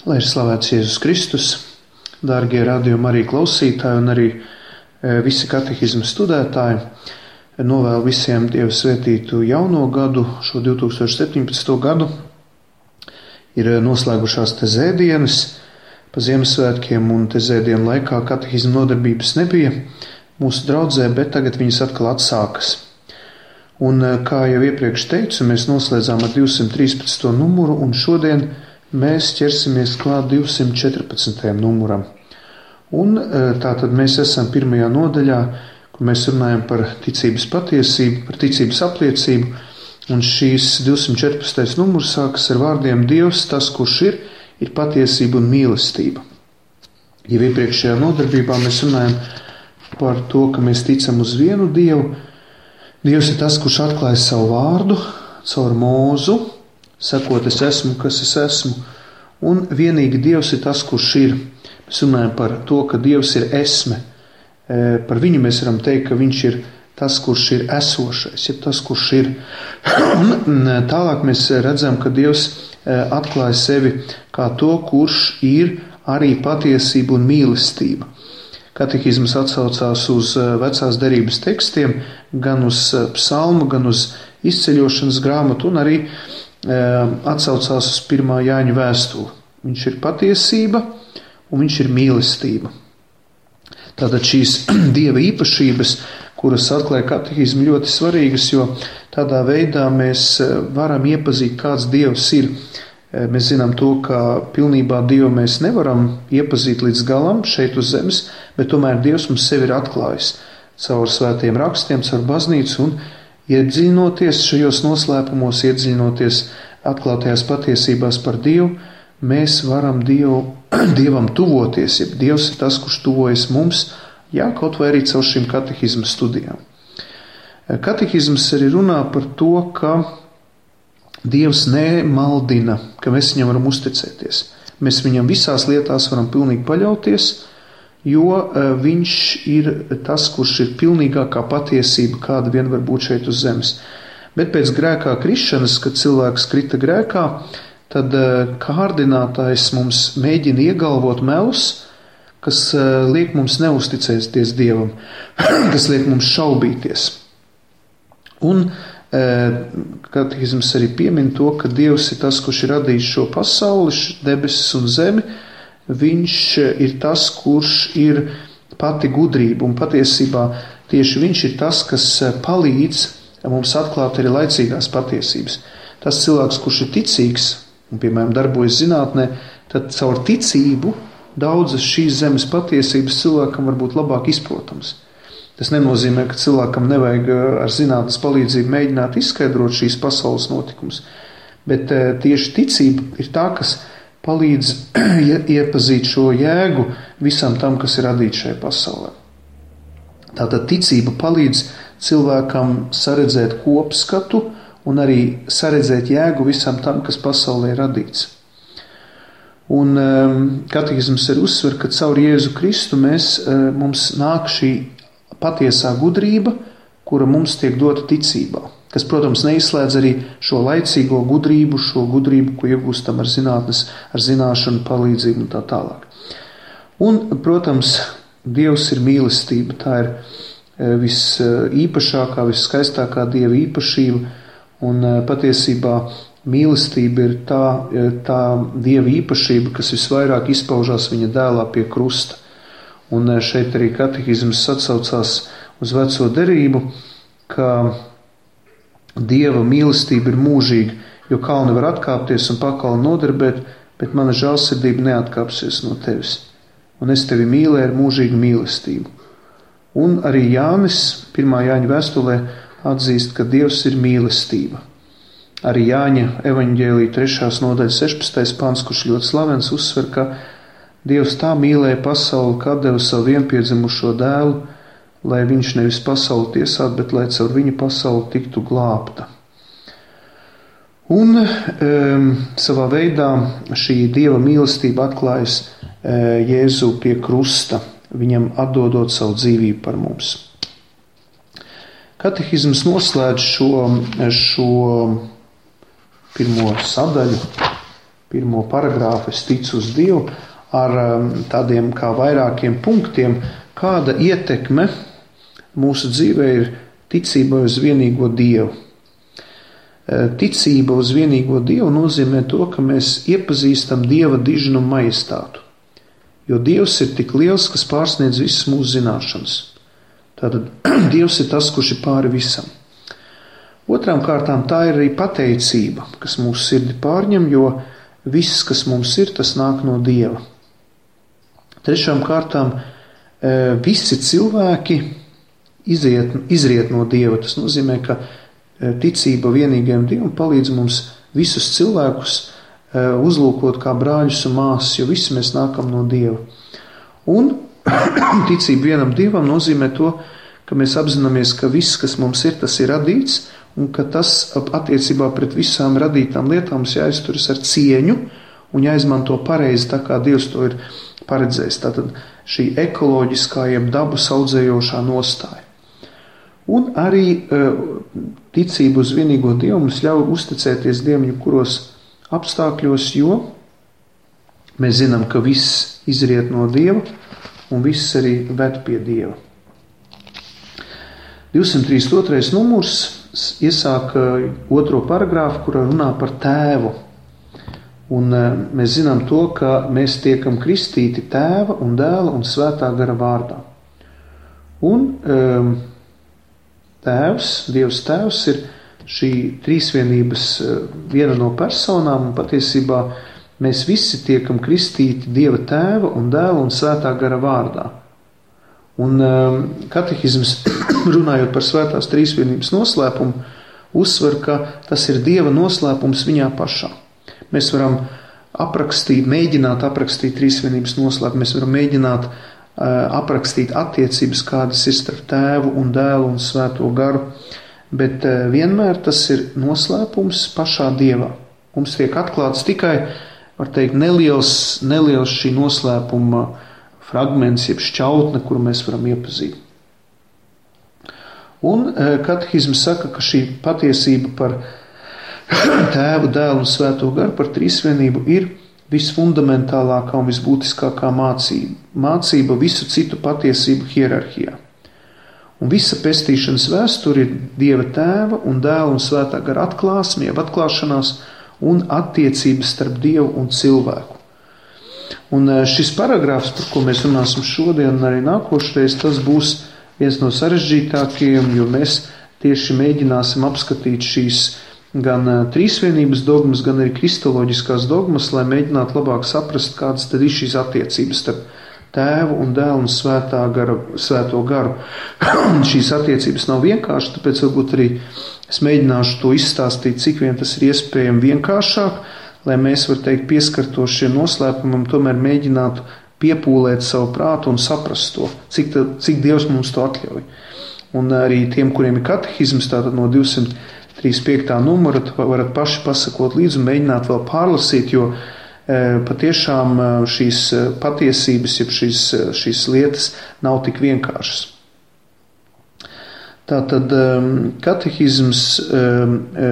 Lai ir slavēts Jēzus Kristus, dārgie radījuma arī klausītāji un arī visi katehizma studētāji. Novēlu visiem Dievu svētītu jauno gadu, šo 2017. gadu. Ir noslēgušās tezēdienas pa Ziemassvētkiem, un tezēdienu laikā katehizma nodarbības nebija mūsu draudzē, bet tagad viņas atkal atsākas. Un, kā jau iepriekš teicu, mēs noslēdzām ar 213. numuru, un šodien mēs ķersimies klāt 214. numuram. Un tātad mēs esam pirmajā nodaļā, kur mēs runājam par ticības patiesību, par ticības apliecību, un šīs 214. numurs sākas ar vārdiem Dievs, tas, kurš ir patiesība un mīlestība. Jau iepriekšējā nodarbībā mēs runājam par to, ka mēs ticam uz vienu Dievu. Dievs ir tas, kurš atklāja savu vārdu caur Mūzu, sakot, es esmu, kas es esmu, un vienīgi Dievs ir tas, kurš ir. Mēs runājam par to, ka Dievs ir esme. Par viņu mēs varam teikt, ka viņš ir tas, kurš ir esošais, ir tas, kurš ir. Un tālāk mēs redzam, ka Dievs atklāja sevi kā to, kurš ir arī patiesība un mīlestība. Katehizms atsaucās uz vecās derības tekstiem, gan uz psalmu, gan uz izceļošanas grāmatu, un arī atsaucās uz 1. Jāņa vēstuli. Viņš ir patiesība un viņš ir mīlestība. Tātad šīs Dieva īpašības, kuras atklāja katehizmu, ļoti svarīgas, jo tādā veidā mēs varam iepazīt, kāds Dievs ir. Mēs zinām to, ka pilnībā Dievu mēs nevaram iepazīt līdz galam šeit uz zemes, bet tomēr Dievs mums sevi ir atklājis caur svētiem rakstiem, caur baznīcu, un iedziļinoties šajos noslēpumos, iedziļinoties atklātajās patiesībās par Dievu, mēs varam Dievam tuvoties, ja Dievs ir tas, kurš tuvojas mums, kaut vai arī caur šīm katehizma studijām. Katehizms arī runā par to, ka Dievs nemaldina, ka mēs viņam varam uzticēties. Mēs viņam visās lietās varam pilnīgi paļauties, jo viņš ir tas, kurš ir pilnīgākā patiesība, kāda vien var būt šeit uz zemes. Bet pēc grēkā krišanas, kad cilvēks krita grēkā, tad kārdinātājs mums mēģina iegalvot melus, kas liek mums neusticēties Dievam, kas liek mums šaubīties. Un katehizms arī piemin to, ka Dievs ir tas, kurš ir radījis šo pasauli, debesis un zemi. Viņš ir tas, kurš ir pati gudrība, un patiesībā tieši viņš ir tas, kas palīdz mums atklāt arī laicīgās patiesības. Tas cilvēks, kurš ir ticīgs un, piemēram, darbojas zinātnē, tad caur ticību daudzas šīs zemes patiesības cilvēkam var būt labāk izprotams. Tas nenozīmē, ka cilvēkam nevajag ar zinātnes palīdzību mēģināt izskaidrot šīs pasaules notikumus, bet tieši ticība ir tā, kas palīdz iepazīt šo jēgu visam tam, kas ir radīts šajā pasaulē. Tātad ticība palīdz cilvēkam saredzēt kopskatu un arī saredzēt jēgu visam tam, kas pasaulē ir radīts. Un katehizms ir uzsver, ka caur Jēzu Kristu mums nāk šī patiesā gudrība, kura mums tiek dota ticībā, kas, protams, neizslēdz arī šo laicīgo gudrību, ko iegūstam ar zinātnes, ar zināšanu palīdzību un tā tālāk. Un, protams, Dievs ir mīlestība, tā ir visīpašākā, visskaistākā Dieva īpašība, un patiesībā mīlestība ir tā Dieva īpašība, kas visvairāk izpaužās viņa dēlā pie krusta. Un šeit arī katehizms atsaucās uz veco derību, ka Dieva mīlestība ir mūžīga, jo kalni var atkāpties un pakalni nodarbēt, bet mana žēlsirdība neatkāpsies no tevis. Un es tevi mīlēju ar mūžīgu mīlestību. Un arī Jānis 1. Jāņa vēstulē atzīst, ka Dievs ir mīlestība. Arī Jāņa evaņģēlija 3. nodaļa 16. pants, kurš ļoti slavens, uzsver, ka Dievs tā mīlēja pasauli, ka deva savu vienpiedzimušo dēlu, lai viņš nevis pasauli tiesātu, bet lai caur viņu pasauli tiktu glābta. Un savā veidā šī Dieva mīlestība atklājas Jēzu pie krusta, viņam atdodot savu dzīvību par mums. Katehizms noslēdz šo pirmo sadaļu pirmo paragrāfu es ticu uz Dievu ar tādiem kā vairākiem punktiem, kāda ietekme mūsu dzīvē ir ticība uz vienīgo Dievu. Ticība uz vienīgo Dievu nozīmē to, ka mēs iepazīstam Dieva dižnumu majestātu. Jo Dievs ir tik liels, kas pārsniedz visas mūsu zināšanas. Tātad Dievs ir tas, kurš ir pāri visam. Otrām kārtām tā ir arī pateicība, kas mūsu sirdi pārņem, jo viss, kas mums ir, tas nāk no Dieva. Trešām kārtām visi cilvēki izriet no Dieva. Tas nozīmē, ka ticība vienīgajam Dievam palīdz mums visus cilvēkus uzlūkot kā brāļus un māsas, jo visi mēs nākam no Dieva. Un ticība vienam Dievam nozīmē to, ka mēs apzināmies, ka viss, kas mums ir, tas ir radīts, un ka tas attiecībā pret visām radītām lietām mums jāizturas ar cieņu un jāizmanto pareizi, tā kā Dievs to ir paredzējis. Tātad šī ekoloģiskā jeb dabu audzējošā nostāja. Un arī ticība uz vienīgo Dievu mums ļauj uzticēties Dievam jebkuros apstākļos, jo mēs zinām, ka viss izriet no Dieva un viss arī ved pie Dieva. 232. numurs iesāk otro paragrāfu, kurā runā par tēvu. Un mēs zinām to, ka mēs tiekam kristīti tēva un dēla un svētā gara vārdā. Un tēvs, Dievs tēvs ir šī trīsvienības viena no personām, un patiesībā mēs visi tiekam kristīti Dieva tēva un dēla un svētā gara vārdā. Un katehisms, runājot par svētās trīsvienības noslēpumu, uzsver, ka tas ir Dieva noslēpums viņā pašā. Mēs varam mēģināt aprakstīt trīsvienības noslēpumu, mēs varam mēģināt aprakstīt attiecības, kādas ir starp tēvu un dēlu un svēto garu, bet vienmēr tas ir noslēpums pašā Dievā. Mums tiek atklāts tikai, var teikt, neliels šī noslēpuma fragments, jeb šķautne, kuru mēs varam iepazīt. Un katehisms saka, ka šī patiesība par tēvu, dēlu un svēto garu, par trīsvienību ir visfundamentālākā un visbūtiskākā mācība. Mācība visu citu patiesību hierarhijā. Un visa pestīšanas vēsture ir Dieva tēva un dēla un svētā gara atklāsme, jeb atklāšanās un attiecības starp Dievu un cilvēku. Un šis paragrāfs, par ko mēs runāsim šodien un arī nākošreiz, tas būs viens no sarežģītākajiem, jo mēs tieši mēģināsim apskatīt šīs gan trīsvienības dogmas, gan arī kristoloģiskās dogmas, lai mēģinātu labāk saprast, kādas tad ir šīs attiecības starp tēvu un dēlu un svēto garu. Šīs attiecības nav vienkārši, tāpēc varbūt arī es mēģināšu to izstāstīt, cik vien tas ir iespējami vienkāršāk, lai mēs, var teikt, pieskartos šiem noslēpumam, tomēr mēģinātu piepūlēt savu prātu un saprast to, cik Dievs mums to atļauj. Un arī tiem, kuriem ir katehisms, tātad no 235. numura, varat paši pasakot līdzi un mēģināt vēl pārlasīt, jo patiešām šīs patiesības, jeb šīs lietas nav tik vienkāršas. Tātad katehisms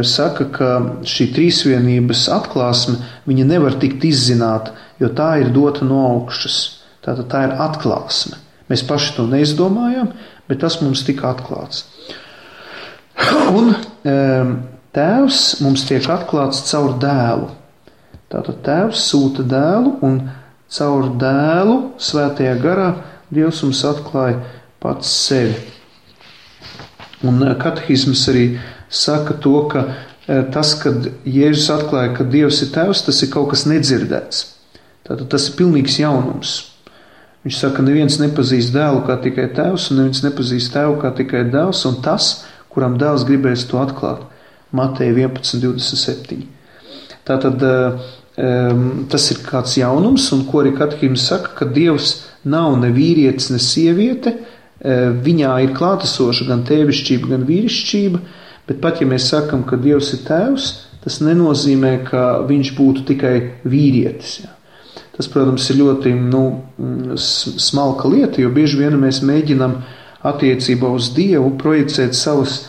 saka, ka šī trīsvienības atklāsme, viņa nevar tikt izzināta, jo tā ir dota no augšas. Tātad tā ir atklāsme. Mēs paši to neizdomājam, bet tas mums tika atklāts. Un tēvs mums tiek atklāts caur dēlu. Tātad tēvs sūta dēlu un caur dēlu svētajā garā Dievs mums atklāja pats sevi. Un katehisms arī saka to, ka tas, kad Jēzus atklāja, ka Dievs ir tēvs, tas ir kaut kas nedzirdēts. Tātad tas ir pilnīgs jaunums. Viņš saka, ka neviens nepazīst dēlu kā tikai tēvs, un neviens nepazīst tēvu kā tikai dēls, un tas, kuram dēls gribēs to atklāt. Mateja 11:27. Tātad tas ir kāds jaunums, un ko arī katehisms saka, ka Dievs nav ne vīrietis, ne sieviete, viņā ir klātesoša gan tēvišķība, gan vīrišķība, bet pat ja mēs sakam, ka Dievs ir tēvs, tas nenozīmē, ka viņš būtu tikai vīrietis. Jā. Tas, protams, ir ļoti smalka lieta, jo bieži vien mēs mēģinam attiecībā uz Dievu projicēt savas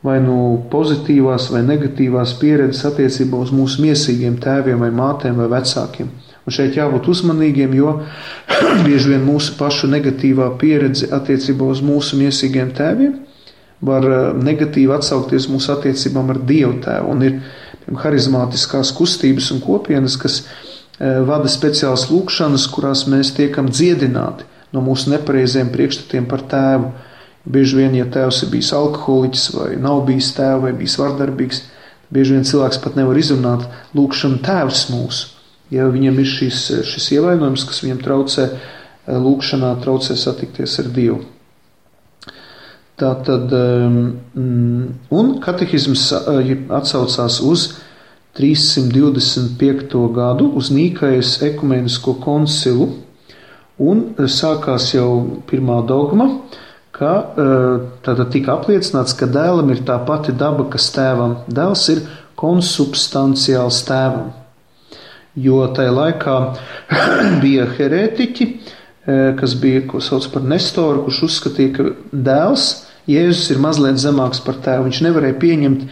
vai nu pozitīvās vai negatīvās pieredzes attiecībā uz mūsu miesīgiem tēviem vai mātēm vai vecākiem. Un šeit jābūt uzmanīgiem, jo bieži vien mūsu pašu negatīvā pieredze attiecībā uz mūsu miesīgiem tēviem var negatīvi atsaukties mūsu attiecībām ar Dievu tēvu. Un ir harizmātiskās kustības un kopienas, kas vada speciālas lūkšanas, kurās mēs tiekam dziedināti no mūsu nepareiziem priekšstatiem par tēvu. Bieži vien, ja tēvs ir bijis alkoholiķis vai nav bijis tēvu vai bijis vardarbīgs, bieži vien cilvēks pat nevar izrunāt lūkšanu tēvs mūsu. Ja viņam ir šis ievainojums, kas viņam traucē lūkšanā, traucē satikties ar Dievu. Tātad, un katehisms atsaucās uz 325. gadu, uz Nīkajas ekumenisko koncilu, un sākās jau pirmā dogma, ka tātad tika apliecināts, ka dēlam ir tā pati daba, kas tēvam. Dēls ir konsubstanciāls tēvam. Jo tajā laikā bija herētiķi, kas bija, ko sauc par Nestoru, kurš uzskatīja, ka dēls, Jēzus, ir mazliet zemāks par tēvu. Viņš nevarēja pieņemt,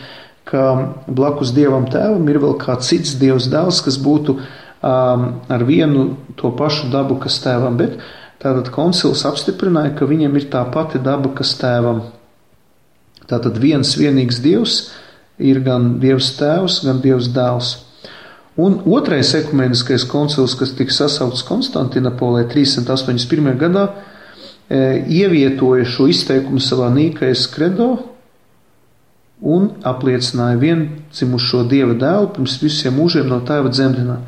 ka blakus Dievam tēvam ir vēl kā cits Dievs dēls, kas būtu ar vienu to pašu dabu, kas tēvam. Bet tātad koncils apstiprināja, ka viņam ir tā pati daba, kas tēvam. Tātad vienīgs Dievs ir gan Dievs tēvs, gan Dievs dēls. Un otrais ekumeniskais koncils, kas tika sasaukts Konstantinopolē 381. gadā, ievietoja šo izteikumu savā Nīkajas kredo un apliecināja viendzimušo Dieva dēlu pirms visiem mūžiem no tēva dzemdināt.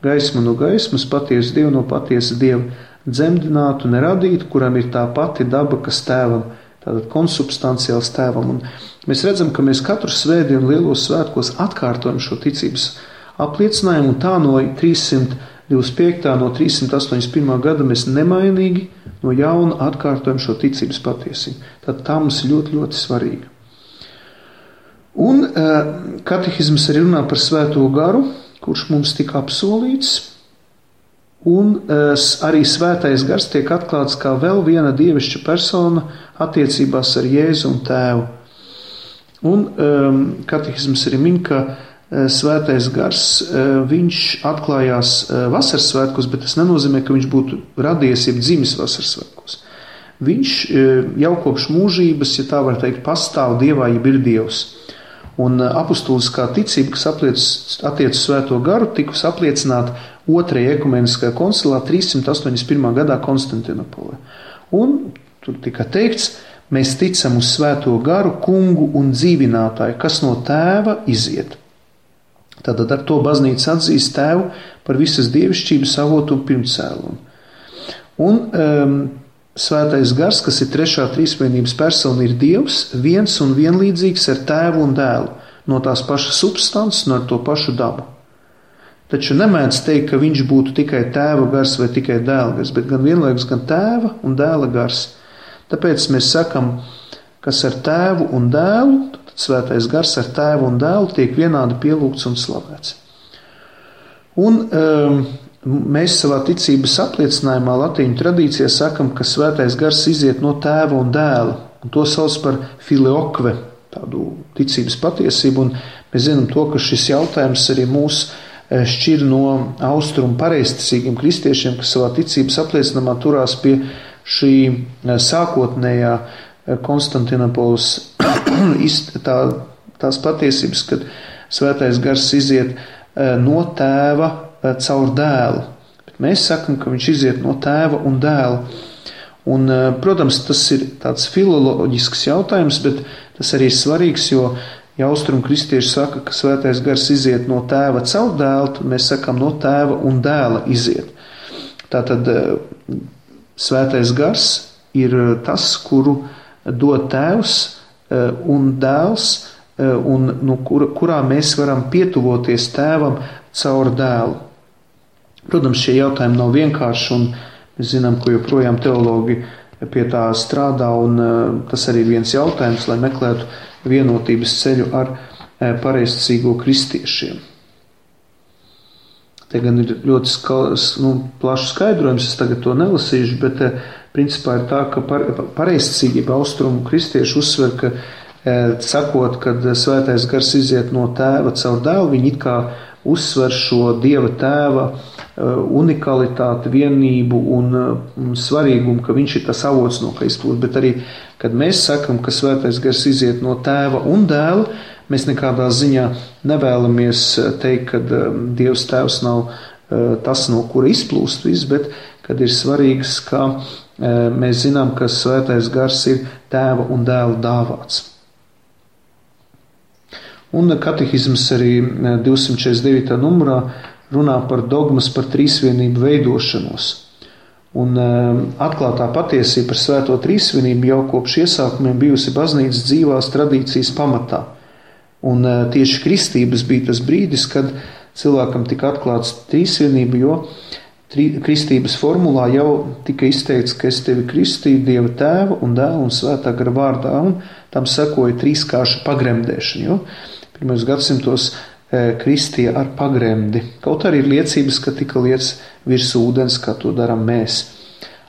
Gaismu no gaismas, patiesu Dievu no patiesa Dieva dzemdinātu, neradītu, kuram ir tā pati daba, kas tēvam, tātad konsubstanciāls tēvam. Un mēs redzam, ka mēs katru svētdienu lielos svētkos atkārtojam šo ticības apliecinājumu, un tā no 325. no 381. gada mēs nemainīgi no jauna atkārtojam šo ticības patiesību. Tad tā mums ir ļoti, ļoti svarīga. Un katehisms arī runā par svēto garu, kurš mums tika apsolīts, un arī svētais gars tiek atklāts kā vēl viena dievišķa persona attiecībās ar Jēzu un tēvu. Un katehisms arī min, ka svētais gars, viņš atklājās vasaras svētkos, bet tas nenozīmē, ka viņš būtu radies, jeb dzimis vasaras svētkos. Viņš jau kopš mūžības, ja tā var teikt, pastāv Dievā, jeb ir Dievs. Un apustuliskā ticība, kas attiec uz svēto garu, tikus apliecināt otrajā ekumeniskajā koncilā 381. gadā Konstantinopolē. Un tur tika teikts, mēs ticam uz svēto garu, kungu un dzīvinātāju, kas no tēva iziet. Tātad ar to baznīca atzīst tēvu par visas dievišķības avotu un pirmcēlumu. Un svētais gars, kas ir trešā trīsvienības persona, ir Dievs, viens un vienlīdzīgs ar tēvu un dēlu, no tās pašas substances un ar to pašu dabu. Taču nemēdz teikt, ka viņš būtu tikai tēva gars vai tikai dēla gars, bet gan vienlaikus gan tēva un dēla gars. Tāpēc mēs sakam, kas ar tēvu un dēlu, svētais gars ar tēvu un dēlu tiek vienādi pielūgts un slavēts. Un mēs savā ticības apliecinājumā latīņu tradīcijā sakam, ka svētais gars iziet no tēva un dēla, un to sauc par filioque, tādu ticības patiesību, un mēs zinām to, ka šis jautājums arī mūs šķir no austrumu pareizticīgiem kristiešiem, kas savā ticības apliecinājumā turās pie šī sākotnējā Konstantinopolis tās patiesības, kad svētais gars iziet no tēva caur dēlu. Bet mēs sakam, ka viņš iziet no tēva un dēla. Un, protams, tas ir tāds filoloģisks jautājums, bet tas arī ir svarīgs, jo ja austrumu kristieši saka, ka svētais gars iziet no tēva caur dēlu, tad mēs sakam no tēva un dēla iziet. Tātad svētais gars ir tas, kuru dod tēvs un dēls, un no kurā mēs varam pietuvoties tēvam caur dēlu. Protams, šie jautājumi nav vienkārši, un mēs zinām, ka joprojām teologi pie tā strādā, un tas arī ir viens jautājums, lai meklētu vienotības ceļu ar pareizticīgo kristiešiem. Te gan ir ļoti plašs skaidrojums, es tagad to nelasīšu, bet principā ir tā, ka pareizticīgība austrumu kristieši uzsver, ka sakot, kad svētais gars iziet no tēva caur dēlu, viņi it kā uzsver šo Dieva tēva unikalitāti, vienību un svarīgumu, ka viņš ir tas avots, no kā izplūst. Bet arī, kad mēs sakam, ka svētais gars iziet no tēva un dēla, mēs nekādā ziņā nevēlamies teikt, ka Dievs tēvs nav tas, no kura izplūst viss, bet kad ir svarīgs, ka mēs zinām, ka svētais gars ir tēva un dēla dāvāts. Un katehisms arī 249. numurā runā par dogmas par trīsvienību veidošanos. Un atklātā patiesība par svēto trīsvienību jau kopš iesākumiem bijusi baznīcas dzīvās tradīcijas pamatā. Un tieši kristības bija tas brīdis, kad cilvēkam tika atklāts trīsvienība, jo kristības formulā jau tika izteikts, ka es tevi kristīju Dieva tēva un dēla un svētā gara vārdā, un tam sekoja trīskārša pagremdēšana, jo pirmajos gadsimtos kristīja ar pagremdi. Kaut arī ir liecības, ka tika liets virs ūdens, kā to darām mēs.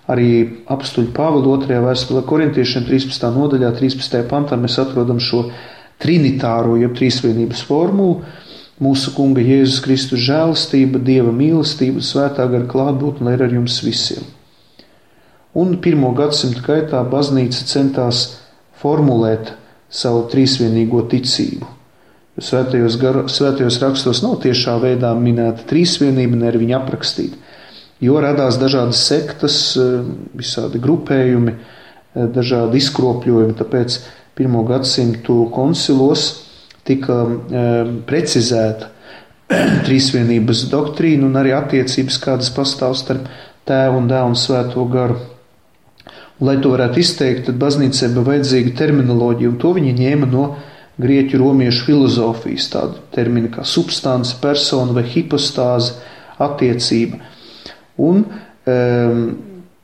Arī apstuļu Pāvila 2. vēstulē korintiešiem 13. nodaļā, 13. pantā mēs atrodam šo trinitāro, jeb trīsvienības formulu. Mūsu Kunga Jēzus Kristus žēlastība, Dieva mīlestība, svētā gara klātbūtne, lai ir ar jums visiem. Un 1. gadsimta gaitā baznīca centās formulēt savu trīsvienīgo ticību. Svētajos rakstos nav tiešā veidā minēta trīsvienība, ne arī viņa aprakstīta, jo radās dažādas sektas, visādi grupējumi, dažādi izkropļojumi, tāpēc 1. gadsimtu koncilos tika precizēta trīsvienības doktrīna un arī attiecības, kādas pastāv starp tēvu un dēlu un svēto garu. Un, lai to varētu izteikt, tad baznīcai bija vajadzīga terminoloģija, un to viņi ņēma no grieķu romiešu filozofijas, tādu terminu kā substance, persona vai hipostāze, attiecība. Un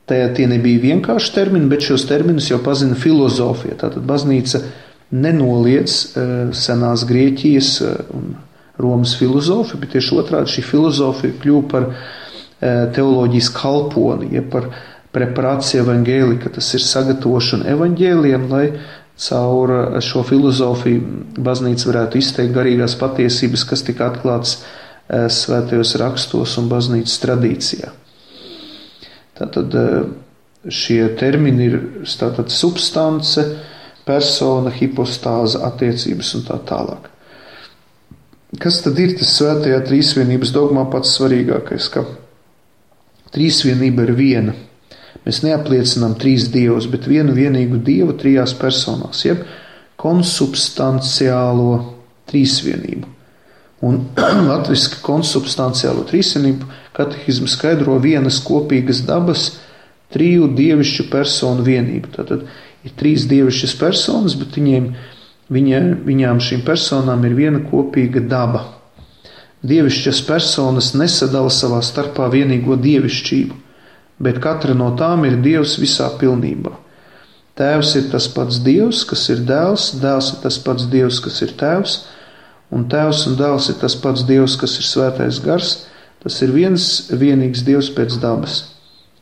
tie nebija vienkārši termini, bet šos terminus jau pazina filozofija. Tātad baznīca nenoliedz senās Grieķijas un Romas filozofiju, bet tieši otrādi šī filozofija kļuva par teoloģijas kalponi, ja par preparāciju evaņģēlika, tas ir sagatavošana evaņģēliem, lai caur šo filozofiju baznīca varētu izteikt garīgās patiesības, kas tika atklātas svētajos rakstos un baznīcas tradīcijā. Tātad šie termini ir tātad substance, persona, hipostāze, attiecības un tā tālāk. Kas tad ir tas svētajā trīsvienības dogmā pats svarīgākais, ka trīsvienība ir viena. Mēs neapliecinām trīs dievus, bet vienu vienīgu dievu trijās personās, jeb konsubstanciālo trīsvienību. Un latviski konsubstanciālo trīsvienību katehismu skaidro vienas kopīgas dabas triju dievišķu personu vienību. Tātad ir trīs dievišķas personas, bet viņām šīm personām ir viena kopīga daba. Dievišķas personas nesadala savā starpā vienīgo dievišķību, bet katra no tām ir Dievs visā pilnībā. Tēvs ir tas pats Dievs, kas ir dēls, dēls ir tas pats Dievs, kas ir tēvs, un tēvs un dēls ir tas pats Dievs, kas ir svētais gars, tas ir viens vienīgs Dievs pēc dabas.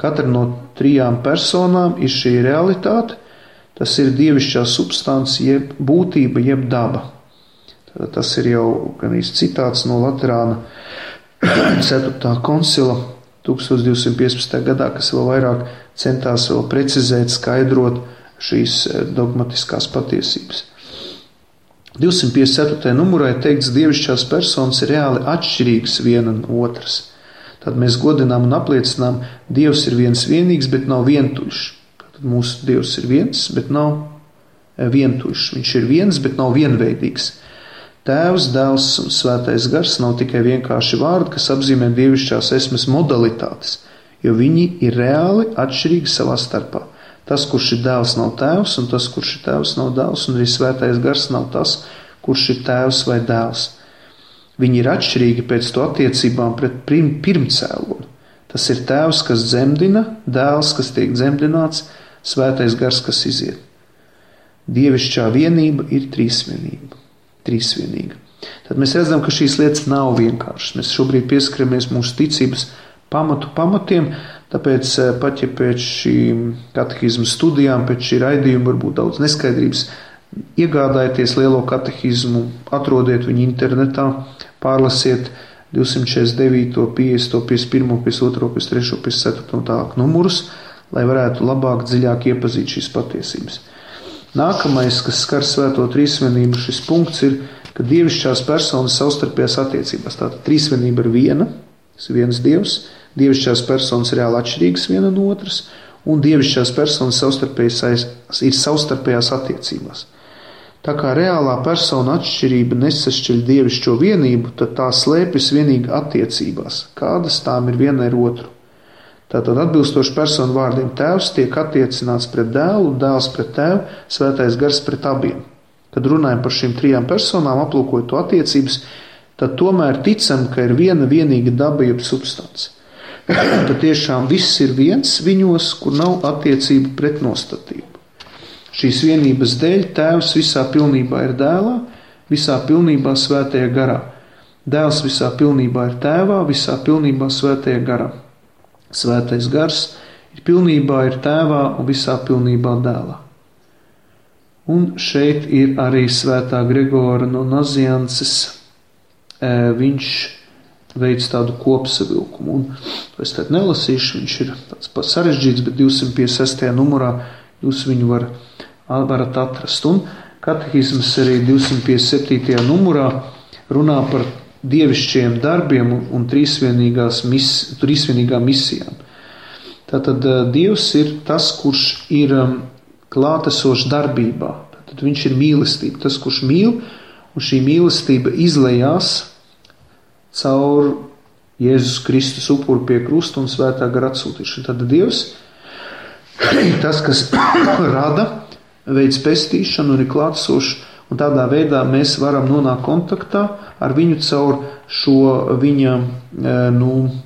Katra no trijām personām ir šī realitāte, tas ir dievišķā substance, jeb būtība, jeb daba. Tātad tas ir jau gan citāts no Laterāna 4. koncila 1215. gadā, kas vēl vairāk centās vēl precizēt, skaidrot šīs dogmatiskās patiesības. 254. numurā ir teikts, dievišķās personas ir reāli atšķirīgas viena no otras. Tad mēs godinām un apliecinām, Dievs ir viens vienīgs, bet nav vientuļš. Tad mūsu Dievs ir viens, bet nav vientuļš. Viņš ir viens, bet nav vienveidīgs. Tēvs, dēls un svētais gars nav tikai vienkārši vārdi, kas apzīmē dievišķās esmes modalitātes, jo viņi ir reāli atšķirīgi savā starpā. Tas, kurš ir dēls, nav tēvs, un tas, kurš ir tēvs, nav dēls, un arī svētais gars nav tas, kurš ir tēvs vai dēls. Viņi ir atšķirīgi pēc to attiecībām pret pirmcēloni. Tas ir tēvs, kas dzemdina, dēls, kas tiek dzemdināts, svētais gars, kas iziet. Dievišķā vienība ir trīsvienīga. Tad mēs redzam, ka šīs lietas nav vienkāršas. Mēs šobrīd pieskaramies mūsu ticības pamatiem, tāpēc pat ja pēc šīm katehizmu studijām, pēc šī raidījuma varbūt daudz neskaidrības Iegādājieties lielo katehismu, atrodiet viņu internetā, pārlasiet 249, 50, 51, 52, 53, 54 un tālāk numurus, lai varētu labāk, dziļāk iepazīt šīs patiesības. Nākamais, kas skar svēto trīsvienību, šis punkts ir, ka dievišķās personas savstarpējās attiecībās. Tātad trīsvienība ir viena, tas ir viens dievs, dievišķās personas reāli atšķirīgas viena no otras, un dievišķās personas ir savstarpējās attiecībās. Tā kā reālā persona atšķirība nesašķiļ dievišķo vienību, tad tā slēpjas vienīgi attiecībās, kādas tām ir viena ar otru. Tātad atbilstoši personu vārdiem tēvs tiek attiecināts pret dēlu, dēls pret tēvu, svētais gars pret abiem. Kad runājam par šīm trijām personām, aplūkojot to attiecības, tad tomēr ticam, ka ir viena vienīga daba jeb substance. Tad tiešām viss ir viens viņos, kur nav attiecību pretnostatību. Šīs vienības dēļ tēvs visā pilnībā ir dēlā, visā pilnībā svētajā garā. Dēls visā pilnībā ir tēvā, visā pilnībā svētajā garā. Svētais gars ir pilnībā ir tēvā un visā pilnībā dēlā. Un šeit ir arī svētā Gregora no Naziances. Viņš veids tādu kopsavilkumu. Un es tad nelasīšu, viņš ir tāds pats sarežģīts, bet 256. numurā jūs viņu varat atrast. Un katehisms arī 257. numurā runā par dievišķiem darbiem un trīsvienīgām misijām. Tātad Dievs ir tas, kurš ir klātesošs darbībā. Tātad viņš ir mīlestība, tas, kurš mīl, un šī mīlestība izlejās caur Jēzus Kristus upuru pie krusta un svētā gara atsūtīšanu. Tad Dievs ir tas, kas rada, veids pestīšanu un ir klātesošs, un tādā veidā mēs varam nonākt kontaktā ar viņu caur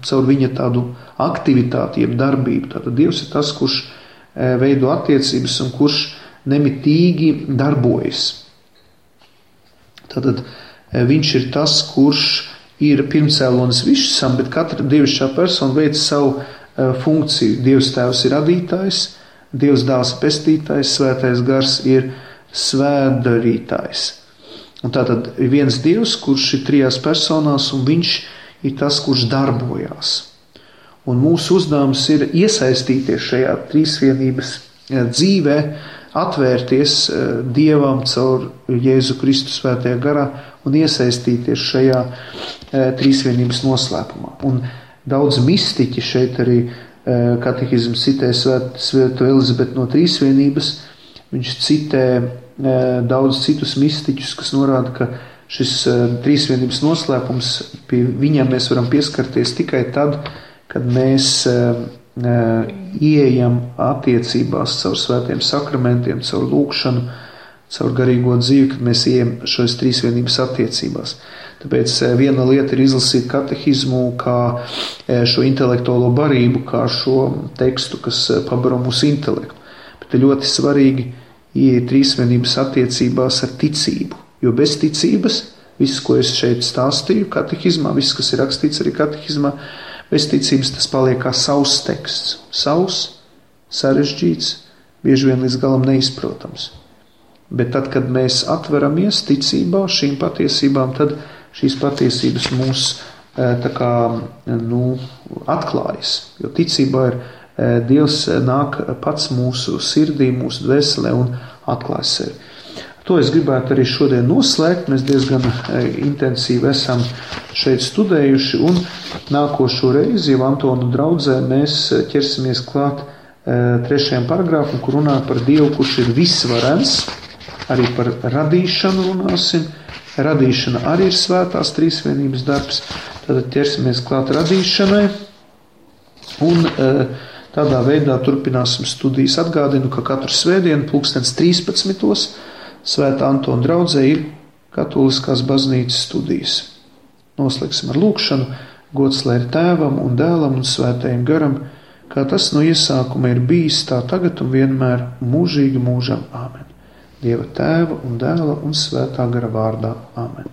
caur viņa tādu aktivitāti, jeb darbību. Tātad Dievs ir tas, kurš veido attiecības un kurš nemitīgi darbojas. Tātad viņš ir tas, kurš ir pirmcēlonis visam, bet katra dievišķā persona veic savu funkciju. Dievs tēvs ir radītājs, Dievs dēls ir pestītājs, svētais gars ir svētdarītājs. Un tātad ir viens Dievs, kurš ir trijās personās, un viņš ir tas, kurš darbojās. Un mūsu uzdevums ir iesaistīties šajā trīsvienības dzīvē, atvērties Dievam caur Jēzu Kristu svētajā garā un iesaistīties šajā trīsvienības noslēpumā. Un daudz mistiķi šeit arī katehisms citē Svēto Elizabeti no trīsvienības. Viņš citē daudz citus mistiķus, kas norāda, ka šis trīsvienības noslēpums, pie viņam mēs varam pieskarties tikai tad, kad mēs ieejam attiecībās caur svētiem sakramentiem, caur lūgšanu, caur garīgo dzīvi, kad mēs ieejam šos trīsvienības attiecībās. Tāpēc viena lieta ir izlasīt katehismu kā šo intelektuālo barību, kā šo tekstu, kas pabaro mūsu intelektu. Bet ir ļoti svarīgi ieiet trīsvienības attiecībās ar ticību, jo bez ticības, viss, ko es šeit stāstīju katehizmā, viss, kas ir rakstīts arī katehizmā, bez ticības tas paliek kā savs teksts. Savs, sarežģīts, bieži vien līdz galam neizprotams. Bet tad, kad mēs atveramies ticībā šīm patiesībām, tad šīs patiesības mūs atklājas. Jo ticībā ir Dievs nāk pats mūsu sirdī, mūsu dvēselē un atklājas sevi. To es gribētu arī šodien noslēgt. Mēs diezgan intensīvi esam šeit studējuši, un nākošo reizi jau Antonu draudzē mēs ķersimies klāt 3. paragrāfam, kur runā par Dievu, kurš ir visvarens, arī par radīšanu runāsim. Radīšana arī ir svētās trīsvienības darbs, tad ķersimies klāt radīšanai, un tādā veidā turpināsim studijas. Atgādinu, ka katru svētdienu 13:13 Svētā Antona draudzē ir katoliskās baznīcas studijas. Noslēgsim ar lūgšanu. Gods lai ir Tēvam un Dēlam un Svētajam garam, kā tas no iesākuma ir bijis, tā tagad un vienmēr mūžīgi mūžam. Āmen. Dieva Tēva un Dēla un Svētā gara vārdā. Āmen.